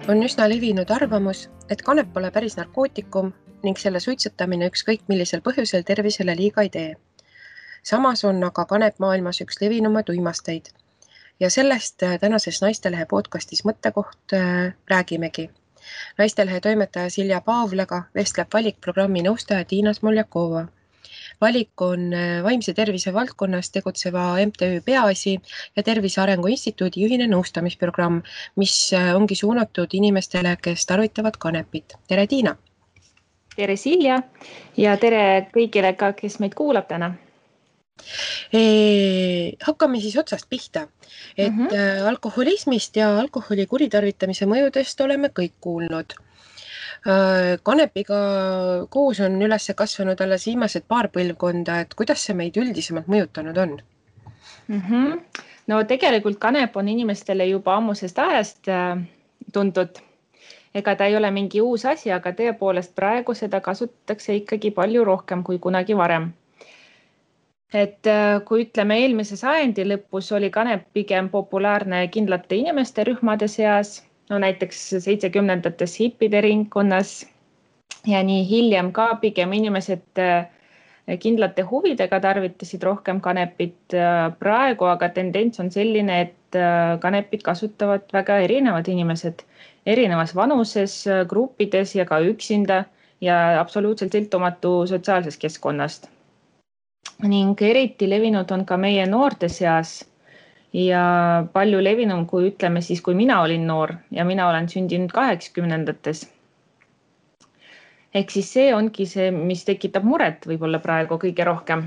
On üsna levinud arvamus, et kanep pole päris narkootikum ning selle suitsetamine ükskõik millisel põhjusel tervisele liiga ei tee. Samas on aga kanep maailmas üks levinumaid uimasteid ja sellest tänases Naistelehe podcastis Mõttekoht räägimegi. Naistelehe toimetaja Silja Paavlaga vestleb valikprogrammi nõustaja Tiina Smoljakova. Valik on vaimse tervise valdkonnas tegutseva MTÜ Peaasi ja Tervise Arengu Instituudi ühine nõustamisprogramm, mis ongi suunatud inimestele, kes tarvitavad kanepit. Tere, Tiina! Tere, Silja! Ja tere kõigile ka, kes meid kuulab täna. Hakkame siis otsast pihta, et alkoholismist ja alkoholi kuritarvitamise mõjudest oleme kõik kuulnud. Kanepiga koos on üles kasvanud alles viimased paar põlvkonda, et kuidas see meid üldisemalt mõjutanud on? No tegelikult kanep on inimestele juba ammusest ajast tuntud. Ega ta ei ole mingi uus asi, aga tõepoolest praegu seda kasutatakse ikkagi palju rohkem kui kunagi varem. Et kui ütleme eelmise sajandi lõpus oli kanep pigem populaarne kindlate inimeste rühmade seas, no näiteks 70-ndates hippide ringkonnas ja nii hiljem ka pigem inimesed kindlate huvidega tarvitasid rohkem kanepit. Praegu aga tendents on selline, et kanepit kasutavad väga erinevad inimesed, erinevas vanuses, gruppides ja ka üksinda ja absoluutselt sõltumatu sotsiaalsest keskkonnast. Ning eriti levinud on ka meie noorte seas ja palju levinum, kui ütleme siis, kui mina olin noor ja mina olen sündinud 80-ndates. Ehk siis see ongi see, mis tekitab muret võib-olla praegu kõige rohkem.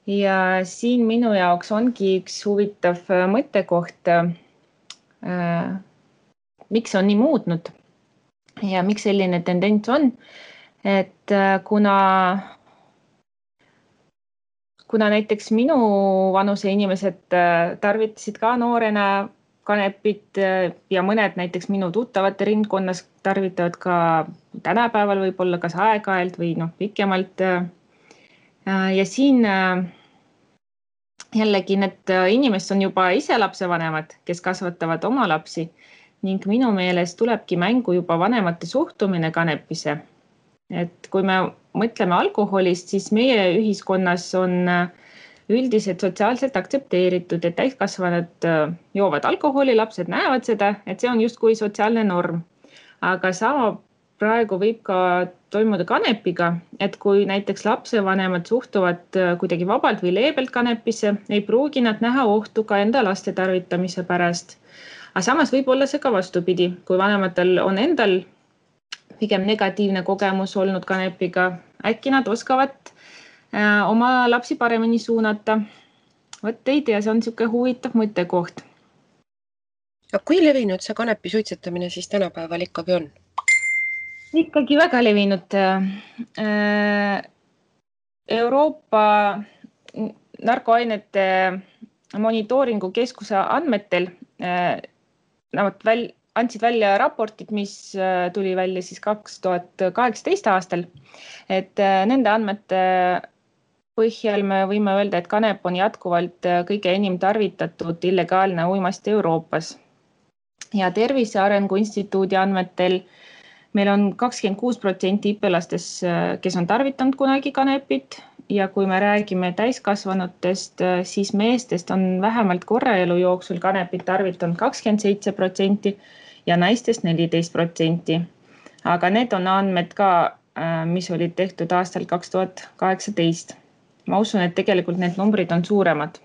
Ja siin minu jaoks ongi üks huvitav mõttekoht, miks on nii muutnud ja miks selline tendents on, et kuna näiteks minu vanuse inimesed tarvitasid ka noorena kanepit ja mõned näiteks minu tuttavate ringkonnas tarvitavad ka tänapäeval võib-olla kas aeg-ajalt või pikemalt. Ja siin jällegi need inimesed on juba ise lapsevanemad, kes kasvatavad oma lapsi ning minu meelest tulebki mängu juba vanemate suhtumine kanepisse. Et kui me mõtleme alkoholist, siis meie ühiskonnas on üldiselt sotsiaalselt aktsepteeritud, et täiskasvanud joovad alkoholi, lapsed näevad seda, et see on justkui sotsiaalne norm. Aga sama praegu võib ka toimuda kanepiga, et kui näiteks lapsevanemad suhtuvad kuidagi vabalt või leebelt kanepisse, ei pruugi nad näha ohtu ka enda laste tarvitamise pärast. Aga samas võib olla see ka vastupidi, kui vanematel on endal pigem negatiivne kogemus olnud kanepiga, äkki nad oskavad oma lapsi paremini suunata. Võt ei tea, see on niisugune huvitav mõttekoht. Kui levinud see kanepi suitsetamine siis tänapäeval ikkagi on? Ikkagi väga levinud. Euroopa narkoainete monitooringu keskuse andmetel andsid välja raportid, mis tuli välja siis 2018 aastal, et nende andmete põhjal me võime öelda, et kanep on jätkuvalt kõige enim tarvitatud illegaalne uimasti Euroopas. Ja Tervise Arengu Instituudi andmetel meil on 26% õpilastes, kes on tarvitanud kunagi kanepit ja kui me räägime täiskasvanutest, siis meestest on vähemalt korra elu jooksul kanepit tarvitanud 27% ja naistest 14%. Aga need on andmed ka, mis olid tehtud aastal 2018. Ma usun, et tegelikult need numbrid on suuremad.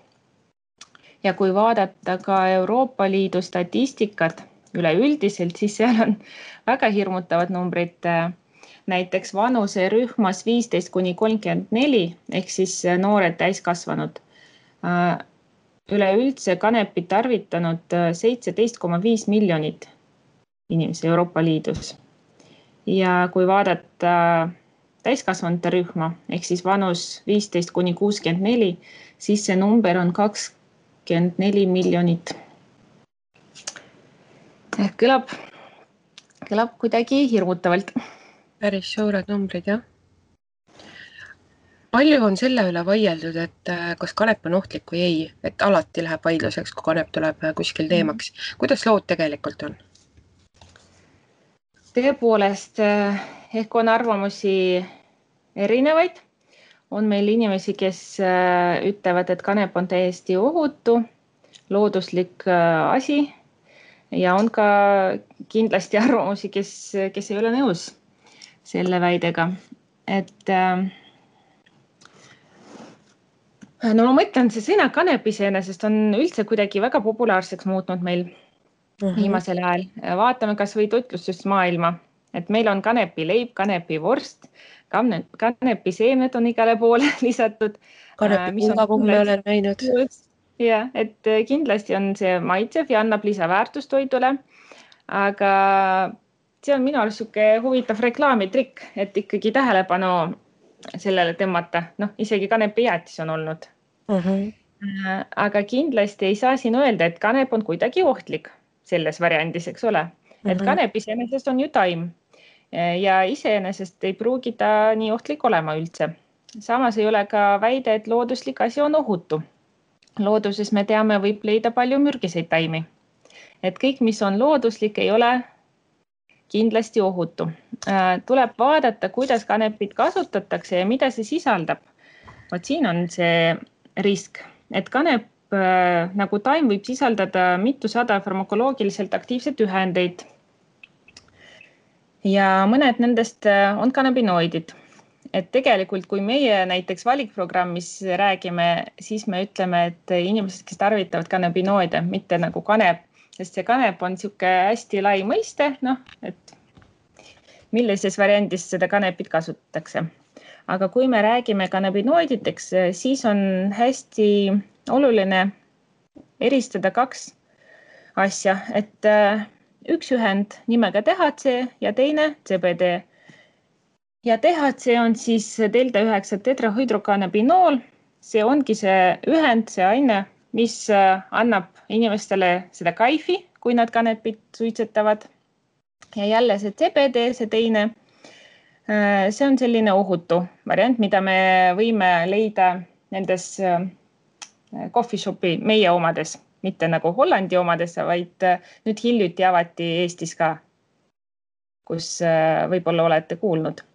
Ja kui vaadata ka Euroopa Liidu statistikat üleüldiselt, siis seal on väga hirmutavad numbrid. Näiteks vanuserühmas 15–34 ehk siis noored täiskasvanud. Üleüldse kanepit tarvitanud 17,5 miljonit inimesi Euroopa Liidus. Ja kui vaadata täiskasvanute rühma ehk siis vanus 15–64, siis see number on 24 miljonit. Kõlab kuidagi hirmutavalt. Päris suured numbrid, jah. Palju on selle üle vaieldud, et kas kanep on ohtlik või ei, et alati läheb vaidluseks, kui kanep tuleb kuskil teemaks. Kuidas lood tegelikult on? tõepoolest, ehk on arvamusi erinevaid. On meil inimesi, kes ütlevad, et kanep on täiesti ohutu, looduslik asi ja on ka kindlasti arvamusi, kes ei ole nõus selle väidega. Et no ma mõtlen, see sõna kanep iseenesest on üldse kuidagi väga populaarseks muutnud meil viimasel ajal. Vaatame kas või toitlustusmaailma, et meil on kanepileib, kanepivorst, kanepiseemned on igale poole lisatud. Kanepipulgakumme me olen näinud. Ja, et kindlasti on see maitsev ja annab lisaväärtust toidule, aga see on minu arust siuke huvitav reklaamitrikk, et ikkagi tähelepanu sellele tõmmata. Noh, isegi kanepijäätis on olnud. Aga kindlasti ei saa siin öelda, et kanep on kuidagi ohtlik selles variandis, eks ole. Et kanep iseenesest on ju taim ja iseenesest ei pruugi ta nii ohtlik olema üldse. Samas ei ole ka väide, et looduslik asi on ohutu. Looduses me teame, võib leida palju mürgiseid taimi. Et kõik, mis on looduslik, ei ole kindlasti ohutu. Tuleb vaadata, kuidas kanepit kasutatakse ja mida see sisaldab. Vot siin on see risk, et kanep nagu taim võib sisaldada mitusada farmakoloogiliselt aktiivset ühendeid. Ja mõned nendest on kanabinoidid. Et tegelikult, kui meie näiteks valikprogrammis räägime, siis me ütleme, et inimesed, kes tarvitavad kanabinoide, mitte nagu kanep, sest see kanep on siuke hästi lai mõiste, et millises variandis seda kanepit kasutatakse. Aga kui me räägime kanabinoiditeks, siis on hästi oluline eristada kaks asja, et üks ühend nimega THC ja teine CBD. Ja THC on siis delta-9 tetrahydrokanabinool. See ongi see ühend, see aine, mis annab inimestele seda kaifi, kui nad kanepit suitsetavad. Ja jälle see CBD, see teine, see on selline ohutu variant, mida me võime leida nendes coffee shopi meie omades, mitte nagu Hollandi omades, vaid nüüd hiljuti avati Eestis ka, kus võib-olla olete kuulnud,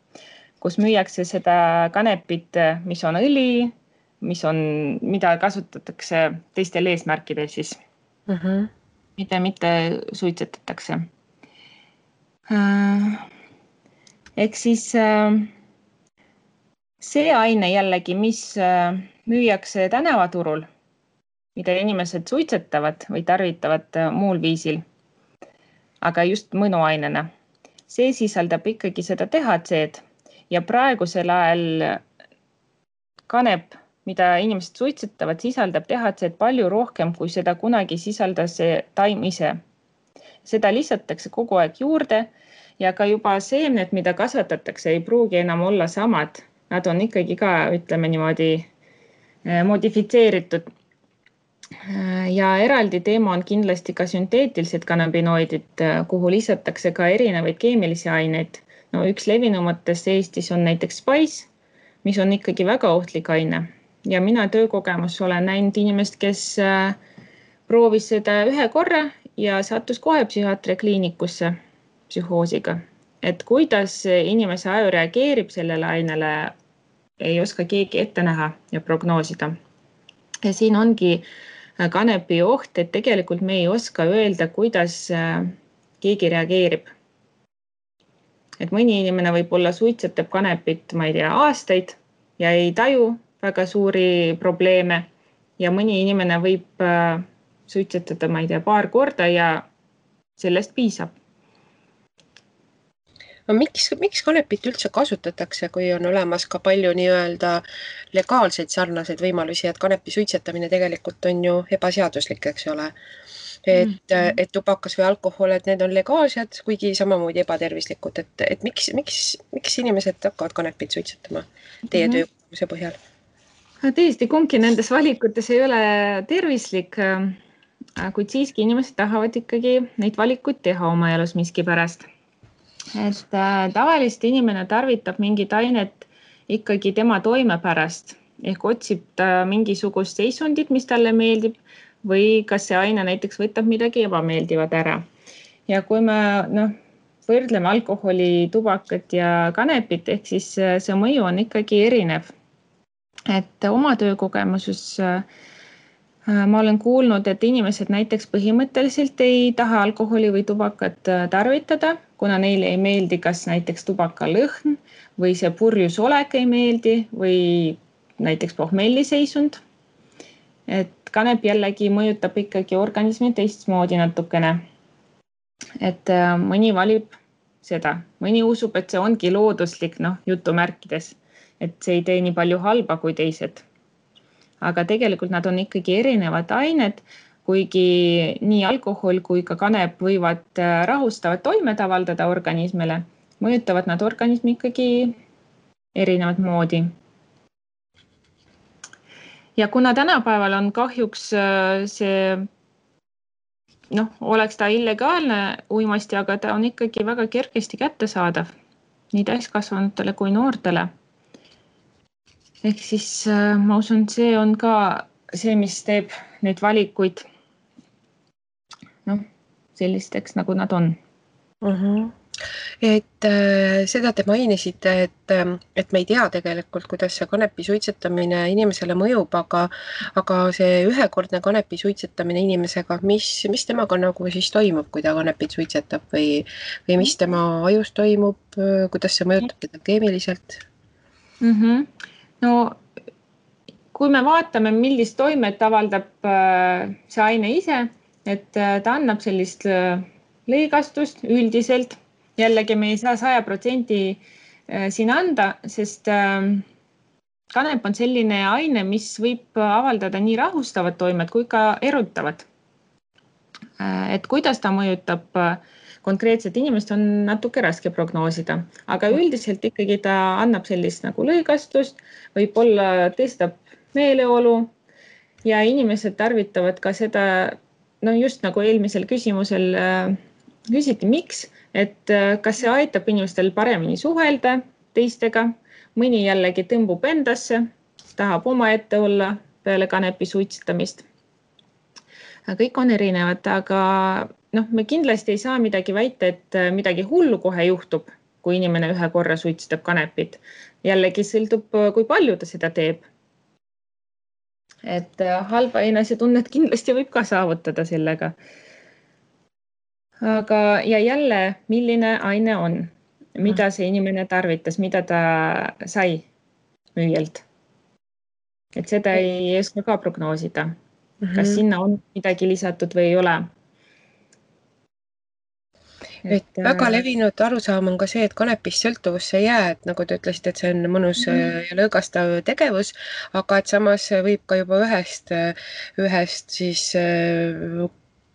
kus müüakse seda kanepit, mis on õli, mida kasutatakse teistel eesmärkidel siis, mida mitte suitsetatakse. Ehk siis see aine jällegi, mis müüakse tänavaturul, mida inimesed suitsetavad või tarvitavad muul viisil, aga just mõnuainena. See sisaldab ikkagi seda THC-d ja praegusel ajal kanep, mida inimesed suitsetavad, sisaldab THC-d palju rohkem, kui seda kunagi sisaldas see taim ise. Seda lisatakse kogu aeg juurde ja ka juba seemned, mida kasvatatakse, ei pruugi enam olla samad. Nad on ikkagi ka, ütleme niimoodi, modifitseeritud. Ja eraldi teema on kindlasti ka sünteetilised kanabinoidid, kuhu lisatakse ka erinevaid keemilisi aineid. No üks levinumatest Eestis on näiteks Spice, mis on ikkagi väga ohtlik aine. Ja mina töökogemus olen näinud inimest, kes proovis seda ühe korra ja sattus kohe psühhiaatria kliinikusse psühhoosiga. Et kuidas inimese aju reageerib sellele ainele, ei oska keegi ette näha ja prognoosida. Ja siin ongi kanepi oht, et tegelikult me ei oska öelda, kuidas keegi reageerib. Et mõni inimene võib-olla suitsetab kanepit, ma ei tea, aastaid ja ei taju väga suuri probleeme ja mõni inimene võib suitsetada, ma ei tea, paar korda ja sellest piisab. No miks kanepit üldse kasutatakse, kui on olemas ka palju nii-öelda legaalseid sarnaseid võimalusi, et kanepi suitsetamine tegelikult on ju ebaseaduslik, eks ole. Et tubakas või alkohol, et need on legaalsed, kuigi samamoodi ebatervislikud. Et miks inimesed hakkavad kanepit suitsetama teie töökogemuse põhjal? Tõesti, kumbki nendes valikutes ei ole tervislik, kuid siiski inimesed tahavad ikkagi neid valikuid teha oma elus miski pärast. Et tavaliselt inimene tarvitab mingit ainet ikkagi tema toime pärast, ehk otsib ta mingisugust seisundit, mis talle meeldib või kas see aine näiteks võtab midagi ebameeldivat ära. Ja kui me võrdleme alkoholi, tubakat ja kanepit, ehk siis see mõju on ikkagi erinev. Et oma töökogemuses ma olen kuulnud, et inimesed näiteks põhimõtteliselt ei taha alkoholi või tubakat tarvitada, kuna neile ei meeldi kas näiteks tubaka lõhn või see purjus olek ei meeldi või näiteks pohmelliseisund. Et kanep jällegi mõjutab ikkagi organismi teistmoodi natukene. Et mõni valib seda, mõni usub, et see ongi looduslik, jutumärkides, et see ei tee nii palju halba kui teised. Aga tegelikult nad on ikkagi erinevad ained, kuigi nii alkohol kui ka kanep võivad rahustavat toimet avaldada organismile, mõjutavad nad organismi ikkagi erinevat moodi. Ja kuna tänapäeval on kahjuks see, oleks ta illegaalne uimasti, aga ta on ikkagi väga kergesti kättesaadav nii täiskasvanutele kui noortele. Ehk siis ma usun, see on ka see, mis teeb neid valikuid sellisteks, nagu nad on. Et seda te mainisite, et me ei tea tegelikult, kuidas see kanepi suitsetamine inimesele mõjub, aga see ühekordne kanepi suitsetamine inimesega, mis temaga nagu siis toimub, kui ta kanepit suitsetab või mis tema ajus toimub, kuidas see mõjutab teda keemiliselt? No kui me vaatame, millist toimet avaldab see aine ise, et ta annab sellist lõigastust üldiselt. Jällegi me ei saa 100% siin anda, sest kanep on selline aine, mis võib avaldada nii rahustavat toimet kui ka erutavat. Et kuidas ta mõjutab konkreetset inimest, on natuke raske prognoosida, aga üldiselt ikkagi ta annab sellist nagu lõigastust, võib-olla tõstab meeleolu ja inimesed tarvitavad ka seda, just nagu eelmisel küsimusel küsiti, miks, et kas see aitab inimestel paremini suhelda teistega, mõni jällegi tõmbub endasse, tahab omaette olla peale kanepi suitsetamist. Kõik on erinevad, aga me kindlasti ei saa midagi väita, et midagi hullu kohe juhtub, kui inimene ühe korra suitsetab kanepit. Jällegi sõltub, kui palju ta seda teeb. Et halba enesetunnet kindlasti võib ka saavutada sellega. Aga ja jälle, milline aine on, mida see inimene tarvitas, mida ta sai müüjalt. Et seda ei oska ka prognoosida, kas sinna on midagi lisatud või ei ole. Et väga levinud arusaam on ka see, et kanepist sõltuvusse ei jää, et nagu te ütlesite, et see on mõnus ja lõõgastav tegevus, aga et samas võib ka juba ühest siis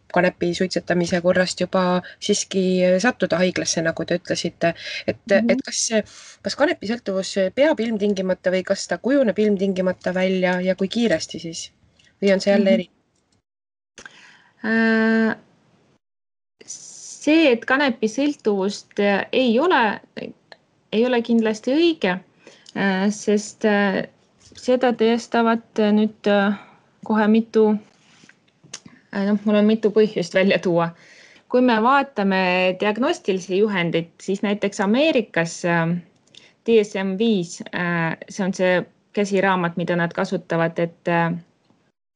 kanepi suitsetamise korrast juba siiski sattuda haiglasse, nagu te ütlesite. Et kas kanepi sõltuvus peab ilmtingimata või kas ta kujuneb ilmtingimata välja ja kui kiiresti siis? Või on see jälle eri? See, et kanepi sõltuvust ei ole kindlasti õige, sest seda tõestavad nüüd kohe mul on mitu põhjust välja tuua. Kui me vaatame diagnostilisi juhendit, siis näiteks Ameerikas DSM-5, see on see käsiraamat, mida nad kasutavad, et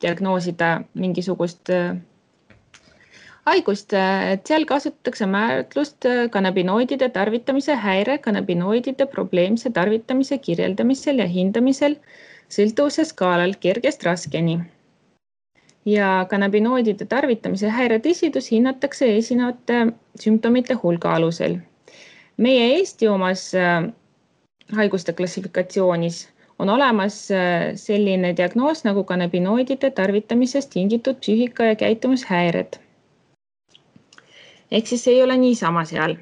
diagnoosida mingisugust haigust, et seal kasutatakse määratlust kanabinoidide tarvitamise häire, kanabinoidide probleemse tarvitamise kirjeldamisel ja hindamisel sõltuvuse skaalal kergest raskeni. Ja kanabinoidide tarvitamise häire tõsidus hinnatakse esinevate sümptomite hulga alusel. Meie Eesti omas haiguste klassifikatsioonis on olemas selline diagnoos nagu kanabinoidide tarvitamisest tingitud psüühika- ja käitumishäired. Ehk siis ei ole niisama seal.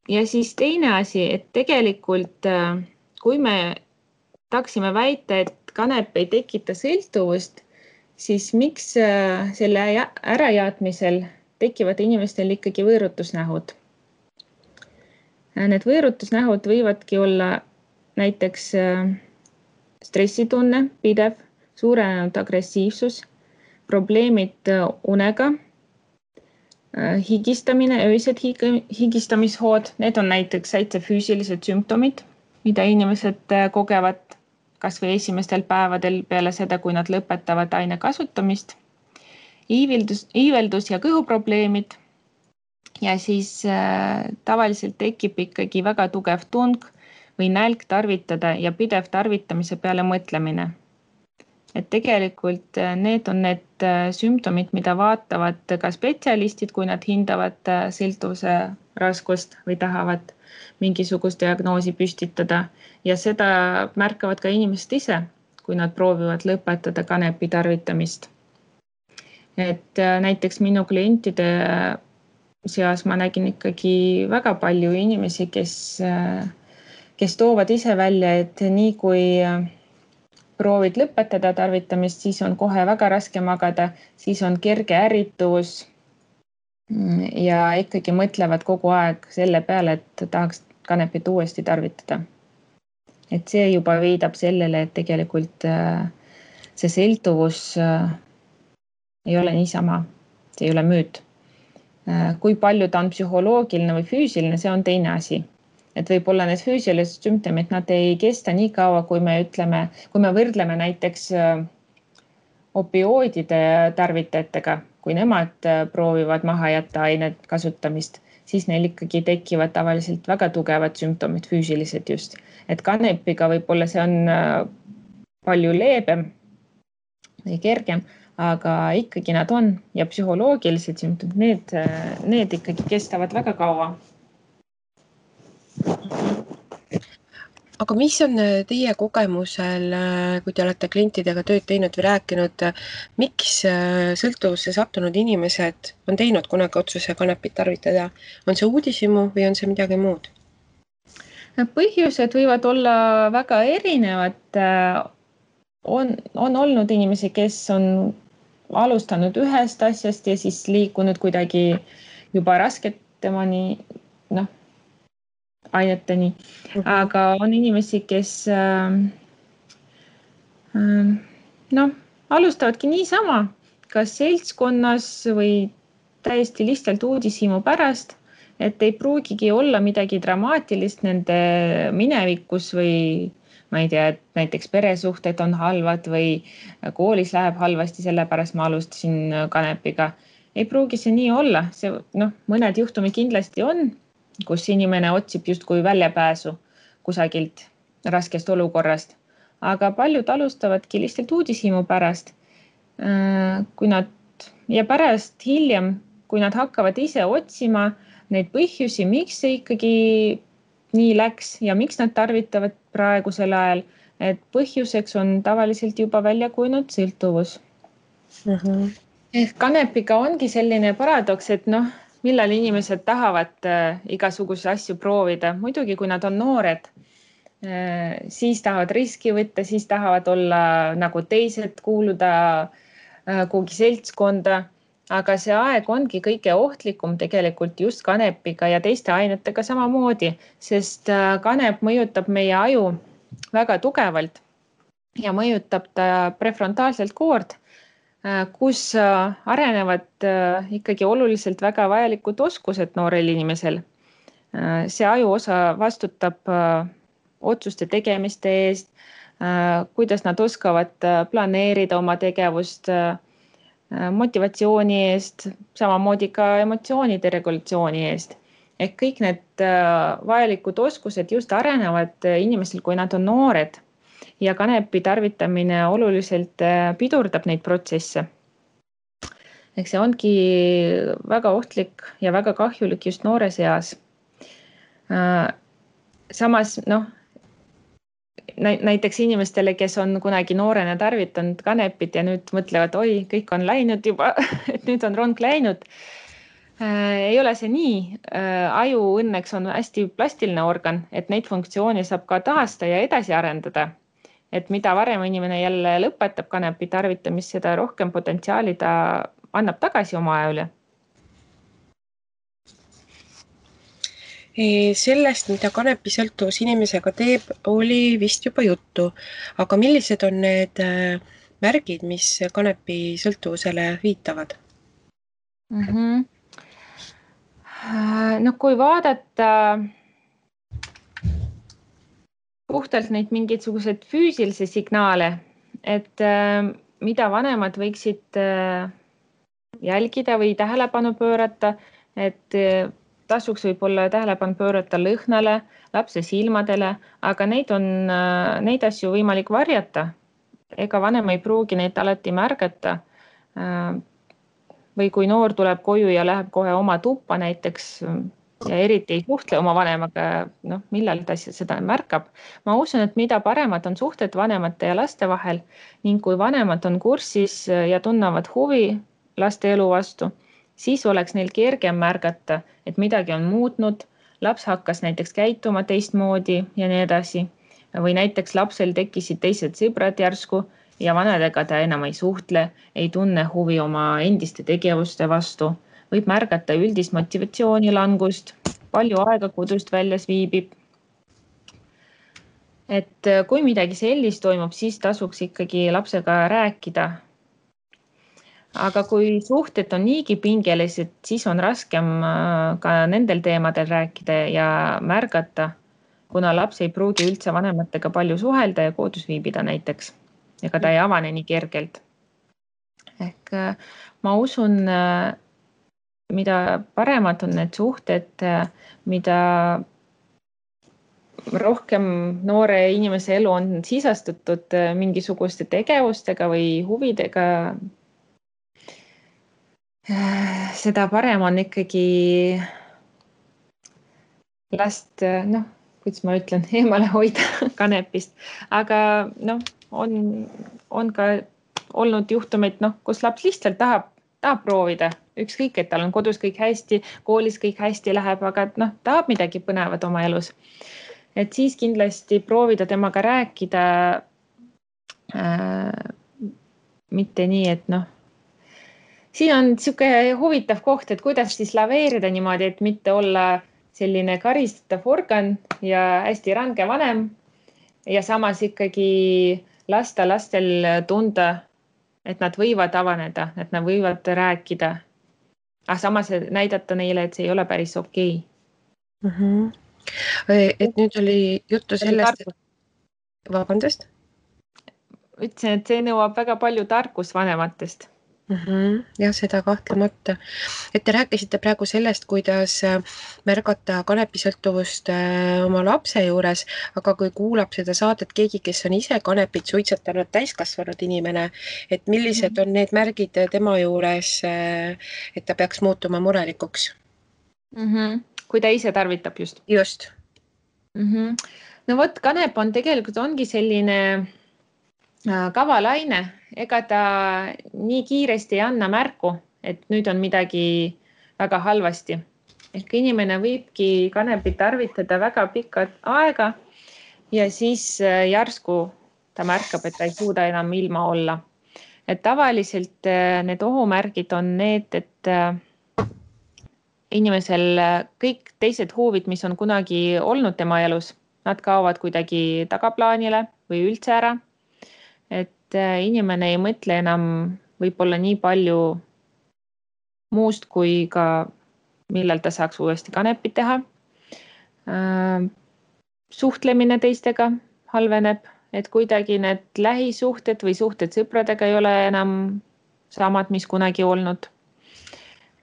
Ja siis teine asi, et tegelikult kui me tahaksime väita, et kanep ei tekita sõltuvust, siis miks selle ärajaatmisel tekivad inimestel ikkagi võõrutusnähud? Need võõrutusnähud võivadki olla näiteks stressitunne, pidev, suurenenud agressiivsus, probleemid unega, higistamine, öised higistamishood, need on näiteks täitsa füüsilised sümptomid, mida inimesed kogevad kas või esimestel päevadel peale seda, kui nad lõpetavad aine kasutamist. Iiveldus ja kõhuprobleemid ja siis tavaliselt tekib ikkagi väga tugev tung või nälg tarvitada ja pidev tarvitamise peale mõtlemine. Et tegelikult need on need sümptomid, mida vaatavad ka spetsialistid, kui nad hindavad sõltuvuse raskust või tahavad mingisugust diagnoosi püstitada. Ja seda märkavad ka inimesed ise, kui nad proovivad lõpetada kanepi tarvitamist. Et näiteks minu klientide seas ma nägin ikkagi väga palju inimesi, kes toovad ise välja, et nii kui proovid lõpetada tarvitamist, siis on kohe väga raske magada, siis on kerge ärritus ja ikkagi mõtlevad kogu aeg selle peale, et tahaks kanepit uuesti tarvitada. Et see juba viidab sellele, et tegelikult see sõltuvus ei ole niisama, see ei ole müüt. Kui palju ta on psühholoogiline või füüsiline, see on teine asi. Et võib-olla need füüsilised sümptomid, nad ei kesta nii kaua, kui me võrdleme näiteks opioidide tarvitajatega, kui nemad proovivad maha jätta ainet kasutamist, siis neil ikkagi tekivad tavaliselt väga tugevad sümptomid, füüsilised just. Et kanepiga võib-olla see on palju leebem või kergem, aga ikkagi nad on ja psühholoogilised sümptomid, need ikkagi kestavad väga kaua. Aga mis on teie kogemusel, kui te olete klientidega tööd teinud või rääkinud, miks sõltuvusse sattunud inimesed on teinud kunagi otsuse kanepit tarvitada? On see uudishimu või on see midagi muud? Põhjused võivad olla väga erinevad. On olnud inimesi, kes on alustanud ühest asjast ja siis liikunud kuidagi juba rasketemani, aineteni, aga on inimesi, kes alustavadki niisama, kas seltskonnas või täiesti lihtsalt uudishimu pärast, et ei pruugigi olla midagi dramaatilist nende minevikus või ma ei tea, et näiteks peresuhted on halvad või koolis läheb halvasti, sellepärast ma alustasin kanepiga. Ei pruugi see nii olla, mõned juhtumid kindlasti on, kus inimene otsib justkui väljapääsu kusagilt raskest olukorrast, aga paljud alustavadki lihtsalt uudishimu pärast. Ja pärast hiljem, kui nad hakkavad ise otsima neid põhjusi, miks see ikkagi nii läks ja miks nad tarvitavad praegusel ajal, et põhjuseks on tavaliselt juba välja kujunenud sõltuvus. Kanepiga ongi selline paradoks, et millal inimesed tahavad igasuguse asju proovida. Muidugi, kui nad on noored, siis tahavad riski võtta, siis tahavad olla nagu teised, kuuluda kuhugi seltskonda. Aga see aeg ongi kõige ohtlikum tegelikult just kanepiga ja teiste ainetega samamoodi, sest kanep mõjutab meie aju väga tugevalt ja mõjutab ta prefrontaalselt koord, kus arenevad ikkagi oluliselt väga vajalikud oskused noorel inimesel. See ajuosa vastutab otsuste tegemiste eest, kuidas nad oskavad planeerida oma tegevust, motivatsiooni eest, samamoodi ka emotsioonide regulatsiooni eest. Ehk kõik need vajalikud oskused just arenevad inimestel, kui nad on noored. Ja kanepi tarvitamine oluliselt pidurdab neid protsesse. Ehk see ongi väga ohtlik ja väga kahjulik just noores eas. Samas, näiteks inimestele, kes on kunagi noorena tarvitanud kanepit ja nüüd mõtlevad, oi, kõik on läinud juba, et nüüd on rong läinud. Ei ole see nii. Aju õnneks on hästi plastiline organ, et neid funktsioone saab ka taasta ja edasi arendada. Et mida varem inimene jälle lõpetab kanepi tarvitamist, seda rohkem potentsiaali ta annab tagasi oma aja üle. Sellest, mida kanepisõltuvus inimesega teeb, oli vist juba juttu. Aga millised on need märgid, mis kanepisõltuvusele viitavad? No kui vaadata puhtalt neid mingisuguseid füüsilisi signaale, et mida vanemad võiksid jälgida või tähelepanu pöörata, et tasuks võib-olla tähelepanu pöörata lõhnale, lapse silmadele, aga neid asju võimalik varjata. Ega vanem ei pruugi neid alati märgata. Või kui noor tuleb koju ja läheb kohe oma tuppa näiteks ja eriti ei suhtle oma vanemaga, millal ta seda märkab. Ma usun, et mida paremad on suhted vanemate ja laste vahel ning kui vanemad on kursis ja tunnevad huvi laste elu vastu, siis oleks neil kergem märgata, et midagi on muutnud, laps hakkas näiteks käituma teistmoodi ja nii edasi. Või näiteks lapsel tekkisid teised sõbrad järsku ja vanadega ta enam ei suhtle, ei tunne huvi oma endiste tegevuste vastu, võib märgata üldist motivatsiooni langust, palju aega kodust väljas viibib. Et kui midagi sellist toimub, siis tasuks ikkagi lapsega rääkida. Aga kui suhted on niigi pingelised, siis on raskem ka nendel teemadel rääkida ja märgata, kuna laps ei pruugi üldse vanematega palju suhelda ja kodus viibida näiteks. Ega ta ei avane nii kergelt. Ehk ma usun, mida paremad on need suhted, mida rohkem noore inimese elu on sisastatud mingisuguste tegevustega või huvidega, seda parem on ikkagi last, kuidas ma ütlen, eemale hoida kanepist. Aga on ka olnud juhtumeid, kus laps lihtsalt tahab proovida. Ükskõik, et tal on kodus kõik hästi, koolis kõik hästi läheb, aga tahab midagi põnevat oma elus. Et siis kindlasti proovida temaga rääkida, mitte nii, et siin on siuke huvitav koht, et kuidas siis laveerida niimoodi, et mitte olla selline karistatav organ ja hästi range vanem ja samas ikkagi lasta lastel tunda, et nad võivad avaneda, et nad võivad rääkida. Aga samas näidata neile, et see ei ole päris okei. Et nüüd oli juttu sellest, et vabandust? Ütlesin, et see nõuab väga palju tarkust vanematest. Jah, seda kahtlemata. Et te rääkisite praegu sellest, kuidas märgata kanepisõltuvust oma lapse juures, aga kui kuulab seda saadet keegi, kes on ise kanepit suitsetanud täiskasvanud inimene, et millised on need märgid tema juures, et ta peaks muutuma murelikuks? Kui ta ise tarvitab just? Just. No vot, kanep on tegelikult ongi selline kavalaine, ega ta nii kiiresti ei anna märku, et nüüd on midagi väga halvasti. Ehk inimene võibki kanepit tarvitada väga pikalt aega ja siis järsku ta märkab, et ta ei suuda enam ilma olla. Et tavaliselt need ohumärgid on need, et inimesel kõik teised huvid, mis on kunagi olnud tema elus, nad kaovad kuidagi tagaplaanile või üldse ära. Et inimene ei mõtle enam võib-olla nii palju muust, kui ka millal ta saaks uuesti kanepit teha. Suhtlemine teistega halveneb, et kuidagi need lähisuhted või suhted sõpradega ei ole enam samad, mis kunagi olnud.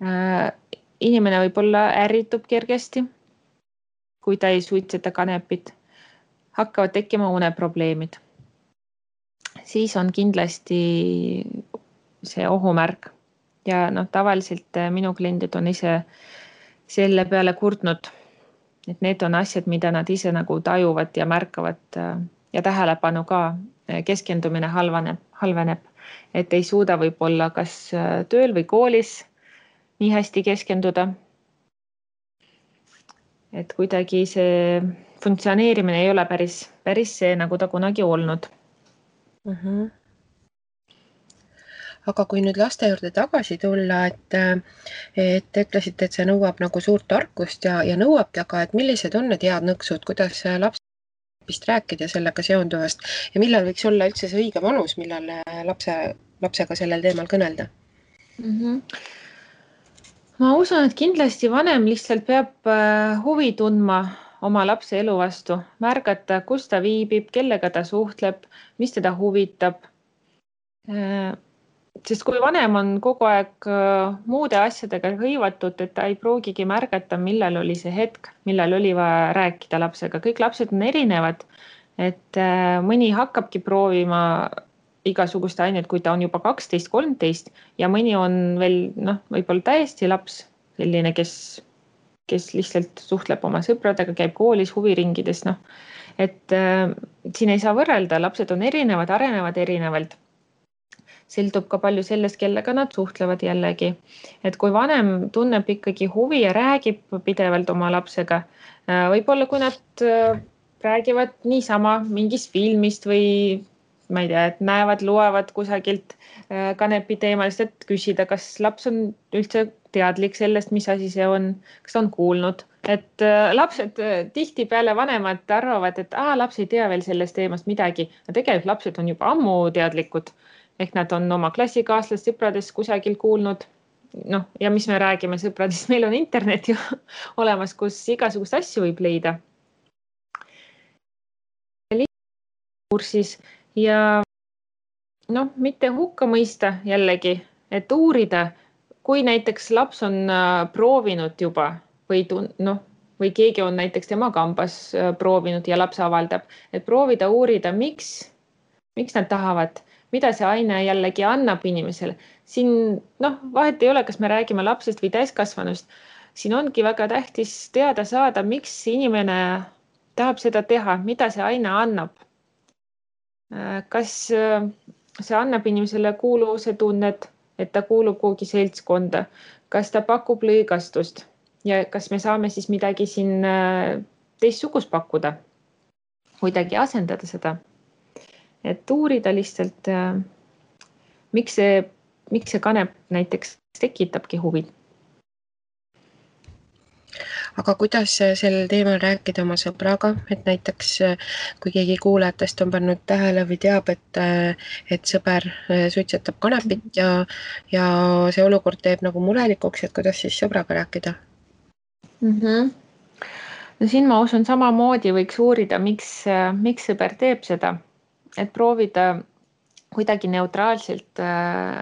Inimene võib-olla ärritub kergesti, kui ta ei suitseta kanepit. Hakkavad tekkima uneprobleemid. Siis on kindlasti see ohumärk ja tavaliselt minu kliendid on ise selle peale kurtnud, et need on asjad, mida nad ise nagu tajuvad ja märkavad ja tähelepanu ka, keskendumine halveneb, et ei suuda võib-olla kas tööl või koolis nii hästi keskenduda. Et kuidagi see funktsioneerimine ei ole päris see, nagu ta kunagi olnud. Aga kui nüüd laste juurde tagasi tulla, et te ütlesite, et see nõuab nagu suurt tarkust ja nõuabki, aga et millised on need head nõksud, kuidas lapsest rääkida sellega seonduvast ja millal võiks olla üldse see õige vanus, millal lapsega sellel teemal kõnelda? Ma usun, et kindlasti vanem lihtsalt peab huvi tundma oma lapse elu vastu, märgata, kus ta viibib, kellega ta suhtleb, mis teda huvitab. Sest kui vanem on kogu aeg muude asjadega hõivatud, et ta ei pruugigi märgata, millal oli see hetk, millal oli vaja rääkida lapsega. Kõik lapsed on erinevad, et mõni hakkabki proovima igasugust ainet, kui ta on juba 12-13 ja mõni on veel võib-olla täiesti laps, selline, kes lihtsalt suhtleb oma sõpradega, käib koolis, huviringides. Et siin ei saa võrrelda, lapsed on erinevad, arenevad erinevalt. Sõltub ka palju sellest, kellega nad suhtlevad jällegi. Et kui vanem tunneb ikkagi huvi ja räägib pidevalt oma lapsega, võib-olla kui nad räägivad niisama mingist filmist või ma ei tea, et näevad, loevad kusagilt kanepi teemalist, et küsida, kas laps on üldse teadlik sellest, mis asi see on, kas ta on kuulnud. Et lapsed tihtipeale vanemad arvavad, et laps ei tea veel sellest teemast midagi. Tegelikult lapsed on juba ammu teadlikud. Ehk nad on oma klassikaaslast sõpradest kusagil kuulnud. Ja mis me räägime sõpradest, meil on internet ju olemas, kus igasugust asju võib leida. Kursis ja mitte hukka mõista jällegi, et uurida, kui näiteks laps on proovinud juba või keegi on näiteks tema kambas proovinud ja laps avaldab, et proovida uurida, miks nad tahavad, mida see aine jällegi annab inimesele. Siin vahet ei ole, kas me räägime lapsest või täiskasvanust. Siin ongi väga tähtis teada saada, miks inimene tahab seda teha, mida see aine annab. Kas see annab inimesele kuuluvuse tunnet, et ta kuulub kuhugi seltskonda, kas ta pakub lõigastust ja kas me saame siis midagi siin teistsugust pakkuda, kuidagi asendada seda. Et uurida lihtsalt, miks see kanep näiteks tekitabki huvi. Aga kuidas sel teemal rääkida oma sõbraga, et näiteks kui keegi kuulajatest on pannud tähele või teab, et sõber suitsetab kanepit ja see olukord teeb nagu murelikuks, et kuidas siis sõbraga rääkida? No siin ma usun samamoodi võiks uurida, miks sõber teeb seda. Et proovida kuidagi neutraalselt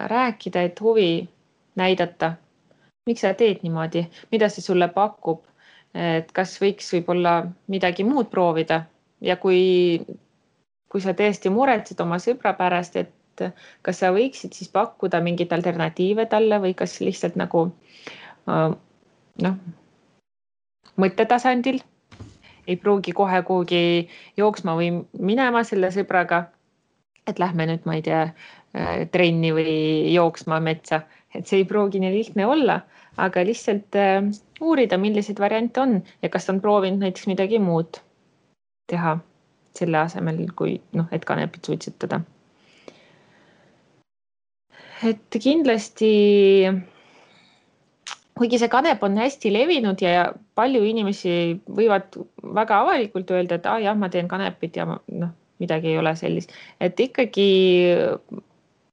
rääkida, et huvi näidata. Miks sa teed niimoodi? Mida see sulle pakub? Et kas võiks võib-olla midagi muud proovida? Ja kui sa tõesti muretsed oma sõbra pärast, et kas sa võiksid siis pakkuda mingit alternatiive talle või kas lihtsalt nagu mõttetasandil ei pruugi kohe kuhugi jooksma või minema selle sõbraga, et lähme nüüd, ma ei tea, trenni või jooksma metsa. Et see ei pruugi nii lihtne olla, aga lihtsalt uurida, millised variante on ja kas on proovinud näiteks midagi muud teha selle asemel, kui et kanepit suitsetada. Et kindlasti kuigi see kanep on hästi levinud ja palju inimesi võivad väga avalikult öelda, et jah, ma teen kanepit ja midagi ei ole sellist. Et ikkagi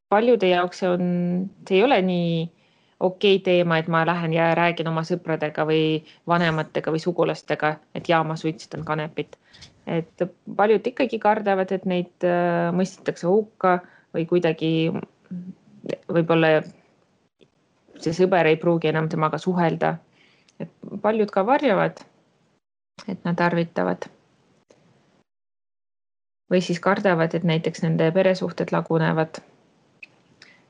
paljude jaoks see ei ole nii okei teema, et ma lähen ja räägin oma sõpradega või vanematega või sugulastega, et ma suitsetan kanepit. Et paljud ikkagi kardavad, et neid mõistetakse hukka või kuidagi võib-olla see sõber ei pruugi enam temaga suhelda. Et paljud ka varjavad, et nad tarvitavad. Või siis kardavad, et näiteks nende peresuhted lagunevad.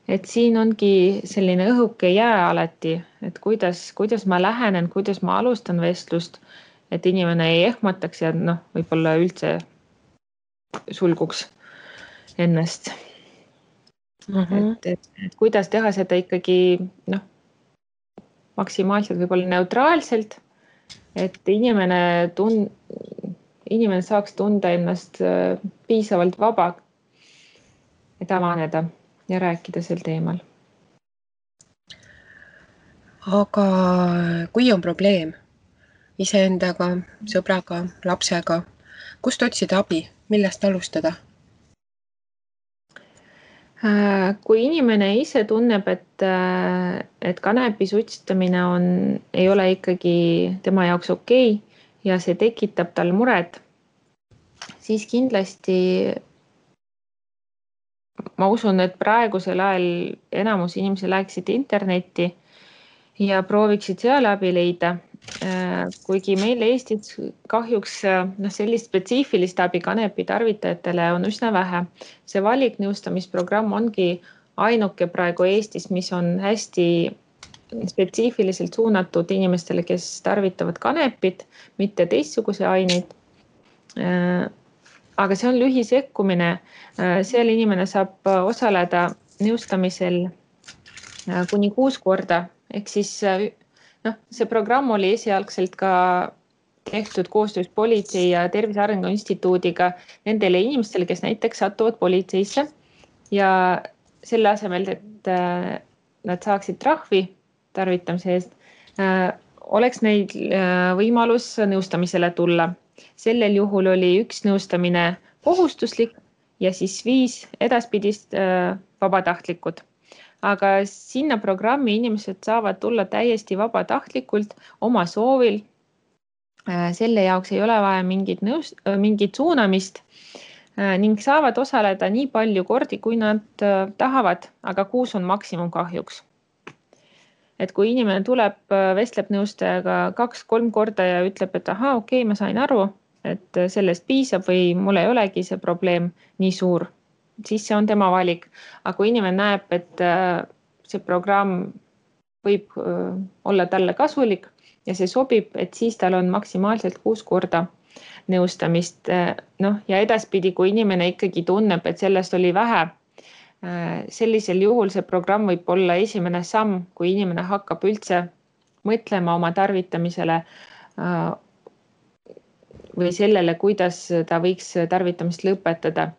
Et siin ongi selline õhuke jää alati, et kuidas ma lähenen, kuidas ma alustan vestlust, et inimene ei ehmataks ja võib-olla üldse sulguks ennast. Et kuidas teha seda ikkagi maksimaalselt võib-olla neutraalselt, et inimene saaks tunda ennast piisavalt vaba, et avaneda ja rääkida sel teemal. Aga kui on probleem iseendaga, sõbraga, lapsega, kust otsida abi, millest alustada? Kui inimene ise tunneb, et kanepi suitsetamine ei ole ikkagi tema jaoks okei ja see tekitab tal muret, siis kindlasti ma usun, et praegusel ajal enamus inimesi läheksid internetti ja prooviksid seal abi leida. Kuigi meil Eestis kahjuks sellist spetsiifilist abi kanepi tarvitajatele on üsna vähe. See valiknõustamisprogramm ongi ainuke praegu Eestis, mis on hästi spetsiifiliselt suunatud inimestele, kes tarvitavad kanepit, mitte teistsuguse aineid. Aga see on lühisekkumine. Seal inimene saab osaleda nõustamisel kuni 6 korda. Ehk siis see programm oli esialgselt ka tehtud koostöös Politsei- ja Tervise Arengu Instituudiga nendele inimestele, kes näiteks satuvad politseisse ja selle asemel, et nad saaksid trahvi tarvitamise eest, oleks neil võimalus nõustamisele tulla. Sellel juhul oli 1 nõustamine kohustuslik ja siis 5 edaspidist vabatahtlikud. Aga sinna programmi inimesed saavad tulla täiesti vabatahtlikult oma soovil. Selle jaoks ei ole vaja mingit suunamist ning saavad osaleda nii palju kordi, kui nad tahavad, aga 6 on maksimum kahjuks. Et kui inimene tuleb, vestleb nõustajaga 2-3 korda ja ütleb, et okei, ma sain aru, et sellest piisab või mul ei olegi see probleem nii suur, siis see on tema valik. Aga kui inimene näeb, et see programm võib olla talle kasulik ja see sobib, et siis tal on maksimaalselt 6 korda nõustamist. Ja edaspidi, kui inimene ikkagi tunneb, et sellest oli vähe, sellisel juhul see programm võib olla esimene samm, kui inimene hakkab üldse mõtlema oma tarvitamisele või sellele, kuidas ta võiks tarvitamist lõpetada,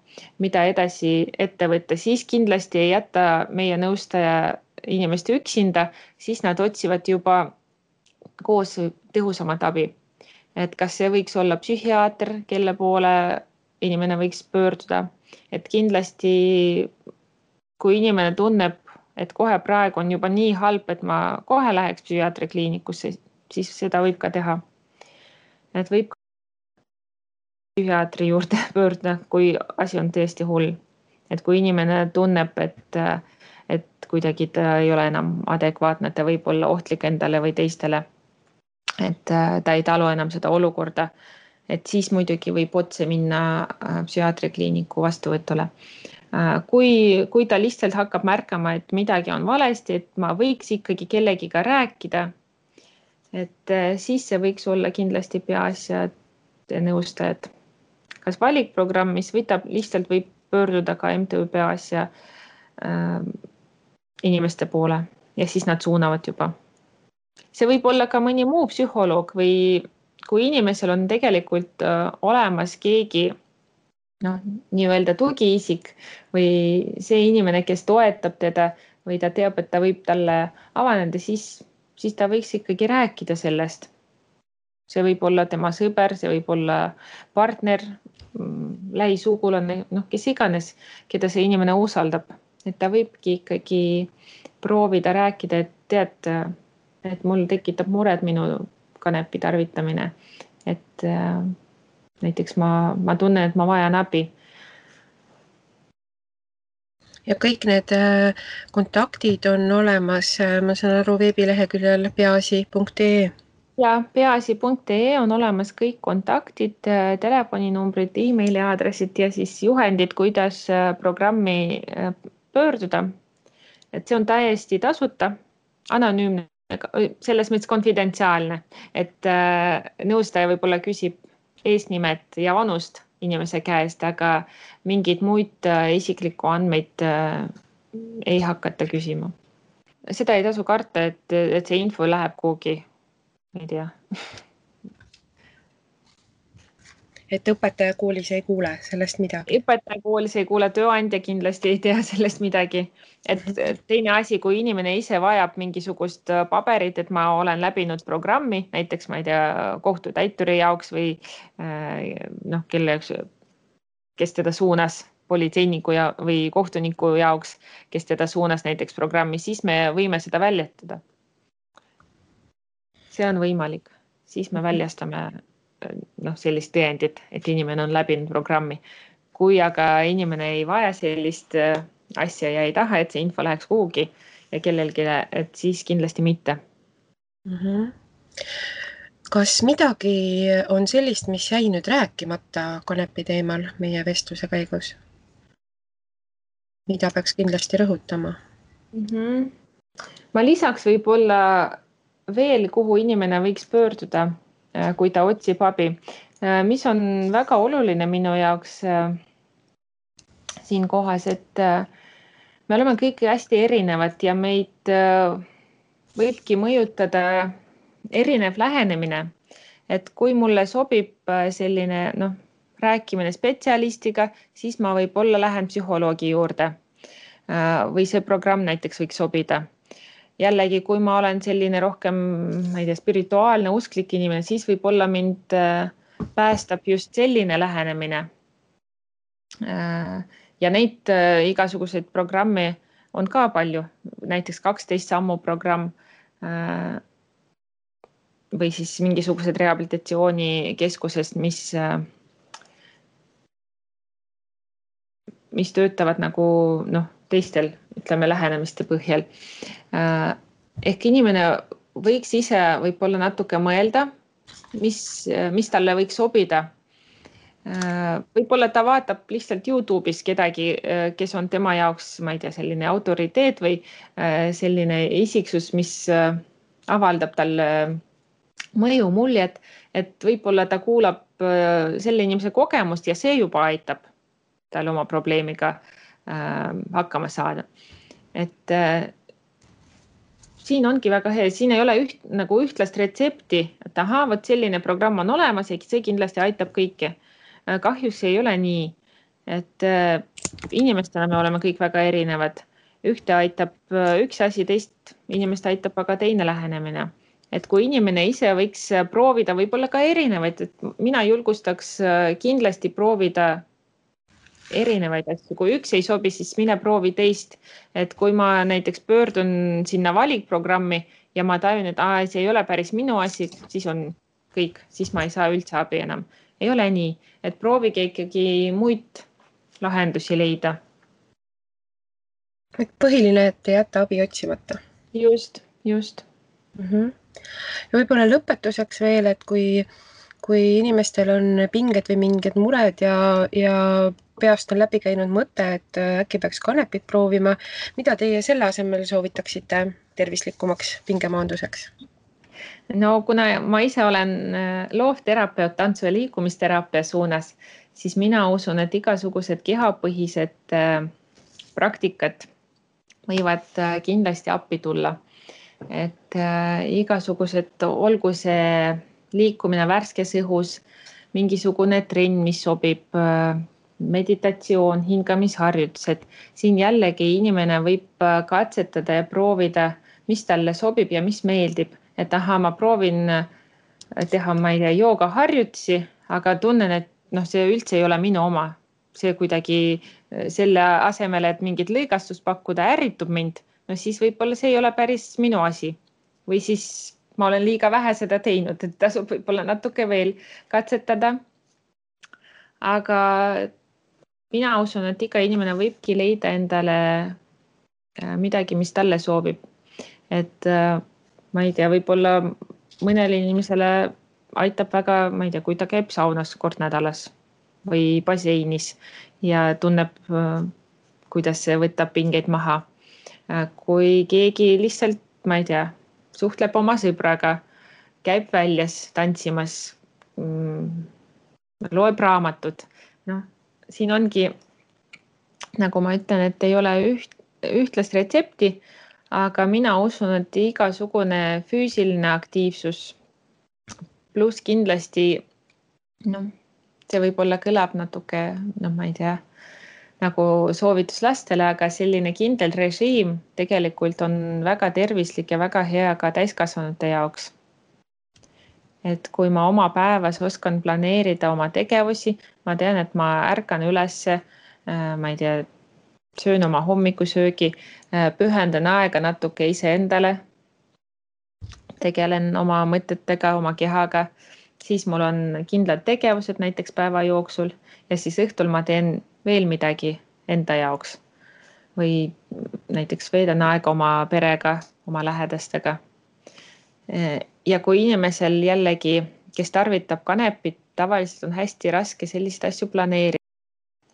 mida edasi ette võtta. Siis kindlasti ei jäta meie nõustaja inimest üksinda, siis nad otsivad juba koos tõhusamat abi. Et kas see võiks olla psühhiaater, kelle poole inimene võiks pöörduda. Et kindlasti, kui inimene tunneb, et kohe praegu on juba nii halb, et ma kohe läheks psühhiaatri kliinikusse, siis seda võib ka teha. Et võib psühhiaatri juurde pöörduda, kui asi on tõesti hull. Et kui inimene tunneb, et kuidagi ta ei ole enam adekvaatne, ta võib olla ohtlik endale või teistele, et ta ei talu enam seda olukorda, et siis muidugi võib otse minna psühhiaatri kliiniku vastuvõtule. Kui ta lihtsalt hakkab märkama, et midagi on valesti, et ma võiks ikkagi kellegiga rääkida, et siis see võiks olla kindlasti peaasjade nõustajad. Kas valikprogramm, mis lihtsalt võib pöörduda ka MTÜ peaasja inimeste poole ja siis nad suunavad juba. See võib olla ka mõni muu psühholoog või kui inimesel on tegelikult olemas keegi nii-öelda tugiisik või see inimene, kes toetab teda või ta teab, et ta võib talle avaneda, siis ta võiks ikkagi rääkida sellest. See võib olla tema sõber, see võib olla partner, lähisugulane, kes iganes, keda see inimene usaldab. Et ta võibki ikkagi proovida rääkida, et tead, et mul tekitab mured minu kanepi tarvitamine. Et näiteks ma tunnen, et ma vajan abi. Ja kõik need kontaktid on olemas, ma saan aru, veebileheküljel peaasi.ee. Ja peaasi.ee on olemas kõik kontaktid, telefoninumbrid, e-maili aadressid ja siis juhendid, kuidas programmi pöörduda. Et see on täiesti tasuta, anonüümne, selles mõttes konfidentsiaalne, et nõustaja võib-olla küsib eesnimet ja vanust inimese käest, aga mingid muid isiklikku andmeid ei hakata küsima. Seda ei tasu karta, et see info läheb kuhugi, ei tea. Et õpetaja koolis ei kuule sellest midagi? Õpetaja koolis ei kuule, tööandja kindlasti ei tea sellest midagi. Et teine asi, kui inimene ise vajab mingisugust paberit, et ma olen läbinud programmi, näiteks ma ei tea, kohtutäituri jaoks või kelle jaoks, kes teda suunas politseiniku või kohtuniku jaoks, kes teda suunas näiteks programmi, siis me võime seda väljastada. See on võimalik, siis me väljastame sellist tõendit, et inimene on läbinud programmi. Kui aga inimene ei vaja sellist asja ja ei taha, et see info läheks kuhugi ja kellelgi, et siis kindlasti mitte. Kas midagi on sellist, mis jäi nüüd rääkimata kanepi teemal meie vestluse käigus? Mida peaks kindlasti rõhutama? Ma lisaks võib-olla veel, kuhu inimene võiks pöörduda, kui ta otsib abi. Mis on väga oluline minu jaoks siin kohas, et me oleme kõik hästi erinevad ja meid võibki mõjutada erinev lähenemine. Et kui mulle sobib selline rääkimine spetsialistiga, siis ma võib-olla lähen psühholoogi juurde või see programm näiteks võiks sobida. Jällegi, kui ma olen selline rohkem, ma ei tea, spirituaalne, usklik inimene, siis võib-olla mind päästab just selline lähenemine. Ja neid igasuguseid programme on ka palju, näiteks 12 sammu programm või siis mingisugused rehabilitatsioonikeskused, mis töötavad nagu teistel, ütleme, lähenemiste põhjal. Ehk inimene võiks ise võib-olla natuke mõelda, mis talle võiks sobida. Võib-olla ta vaatab lihtsalt YouTube'is kedagi, kes on tema jaoks, ma ei tea, selline autoriteet või selline isiksus, mis avaldab talle mõju muljet, et võib-olla ta kuulab selle inimese kogemust ja see juba aitab tal oma probleemiga hakkama saada. Et siin ongi väga hea, siin ei ole ühtlast retsepti, et vot selline programm on olemas ja see kindlasti aitab kõike. Kahjuks ei ole nii, et inimestena me oleme kõik väga erinevad. Ühte aitab üks asi, teist inimest aitab aga teine lähenemine. Et kui inimene ise võiks proovida võib-olla ka erinevaid, et mina julgustaks kindlasti proovida erinevaid asju. Kui üks ei sobi, siis mine proovi teist. Et kui ma näiteks pöördun sinna valikprogrammi ja ma tajun, et see ei ole päris minu asi, siis on kõik, siis ma ei saa üldse abi enam. Ei ole nii, et proovige ikkagi muid lahendusi leida. Et põhiline, et ei jätta abi otsimata. Just. Ja võib-olla lõpetuseks veel, et kui inimestel on pinged või mingid mured ja peast on läbi käinud mõte, et äkki peaks kanepit proovima, mida teie selle asemel soovitaksite tervislikumaks pingemaanduseks? No kuna ma ise olen loovterapeut, tantsu- ja liikumisteraapia suunas, siis mina usun, et igasugused kehapõhised praktikad võivad kindlasti appi tulla. Et igasugused, olgu see liikumine värskes õhus, mingisugune trenn, mis sobib, meditatsioon, hingamisharjutused. Siin jällegi inimene võib katsetada ja proovida, mis talle sobib ja mis meeldib. Et ma proovin teha, ma ei tea, joogaharjutusi, aga tunnen, et see üldse ei ole minu oma. See kuidagi selle asemele, et mingit lõigastust pakkuda, ärritub mind. Siis võib-olla see ei ole päris minu asi. Või siis ma olen liiga vähe seda teinud, et tasub võib-olla natuke veel katsetada. Aga mina usun, et iga inimene võibki leida endale midagi, mis talle soovib. Et ma ei tea, võib-olla mõnele inimesele aitab väga, ma ei tea, kui ta käib saunas kord nädalas või baseinis ja tunneb, kuidas see võtab pingeid maha. Kui keegi lihtsalt, ma ei tea, suhtleb oma sõbraga, käib väljas tantsimas, loeb raamatut. Siin ongi, nagu ma ütlen, et ei ole ühtlast retsepti, aga mina usun, et igasugune füüsiline aktiivsus pluss kindlasti, see võib-olla kõlab natuke, ma ei tea, nagu soovitus lastele, aga selline kindel režiim tegelikult on väga tervislik ja väga hea ka täiskasvanute jaoks. Et kui ma oma päevas oskan planeerida oma tegevusi, ma tean, et ma ärkan ülesse, ma ei tea, söön oma hommikusöögi, pühendan aega natuke iseendale, tegelen oma mõtetega, oma kehaga, siis mul on kindlad tegevused näiteks päeva jooksul ja siis õhtul ma teen veel midagi enda jaoks või näiteks veedan aega oma perega, oma lähedastega. Ja kui inimesel jällegi, kes tarvitab kanepit, tavaliselt on hästi raske selliseid asju planeerida,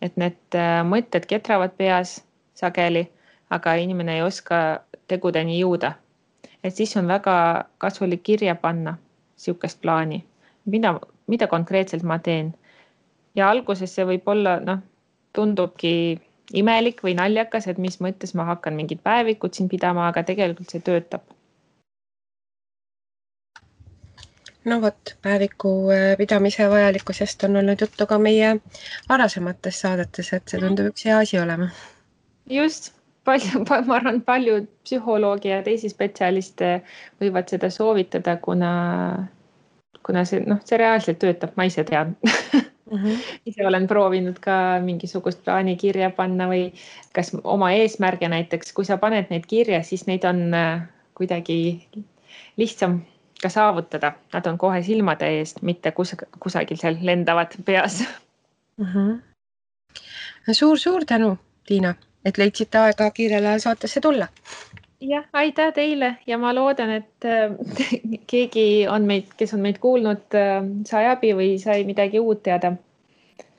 et need mõtted ketravad peas sageli, aga inimene ei oska tegudeni jõuda. Et siis on väga kasulik kirja panna sihukest plaani, mida konkreetselt ma teen. Ja alguses see võib olla, tundubki imelik või naljakas, et mis mõttes ma hakkan mingit päevikut siin pidama, aga tegelikult see töötab. No vot, päeviku pidamise vajalikkusest on olnud juttu ka meie varasemates saadetes, et see tundub üks hea asi olema. Just, ma arvan, paljud psühholoogi ja teisi spetsialiste võivad seda soovitada, kuna see reaalselt töötab, ma ise tean. Ise olen proovinud ka mingisugust plaani kirja panna või kas oma eesmärge näiteks, kui sa paned neid kirja, siis neid on kuidagi lihtsam ka saavutada. Nad on kohe silmade eest, mitte kusagil seal lendavad peas. Suur tänu, Tiina, et leidsite aega kiirel ajal saatesse tulla. Jah, aitäh teile ja ma loodan, et keegi on kes on meid kuulnud, sai abi või sai midagi uut teada.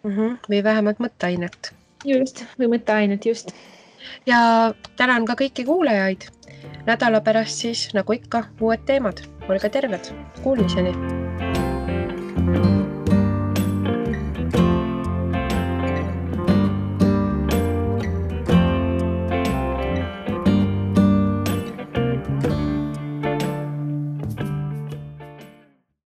Või vähemalt mõtteainet. Just, või mõtteainet, just. Ja tänan ka kõiki kuulajaid. Nädala pärast siis, nagu ikka, uued teemad. Olge terved. Kuulmiseni.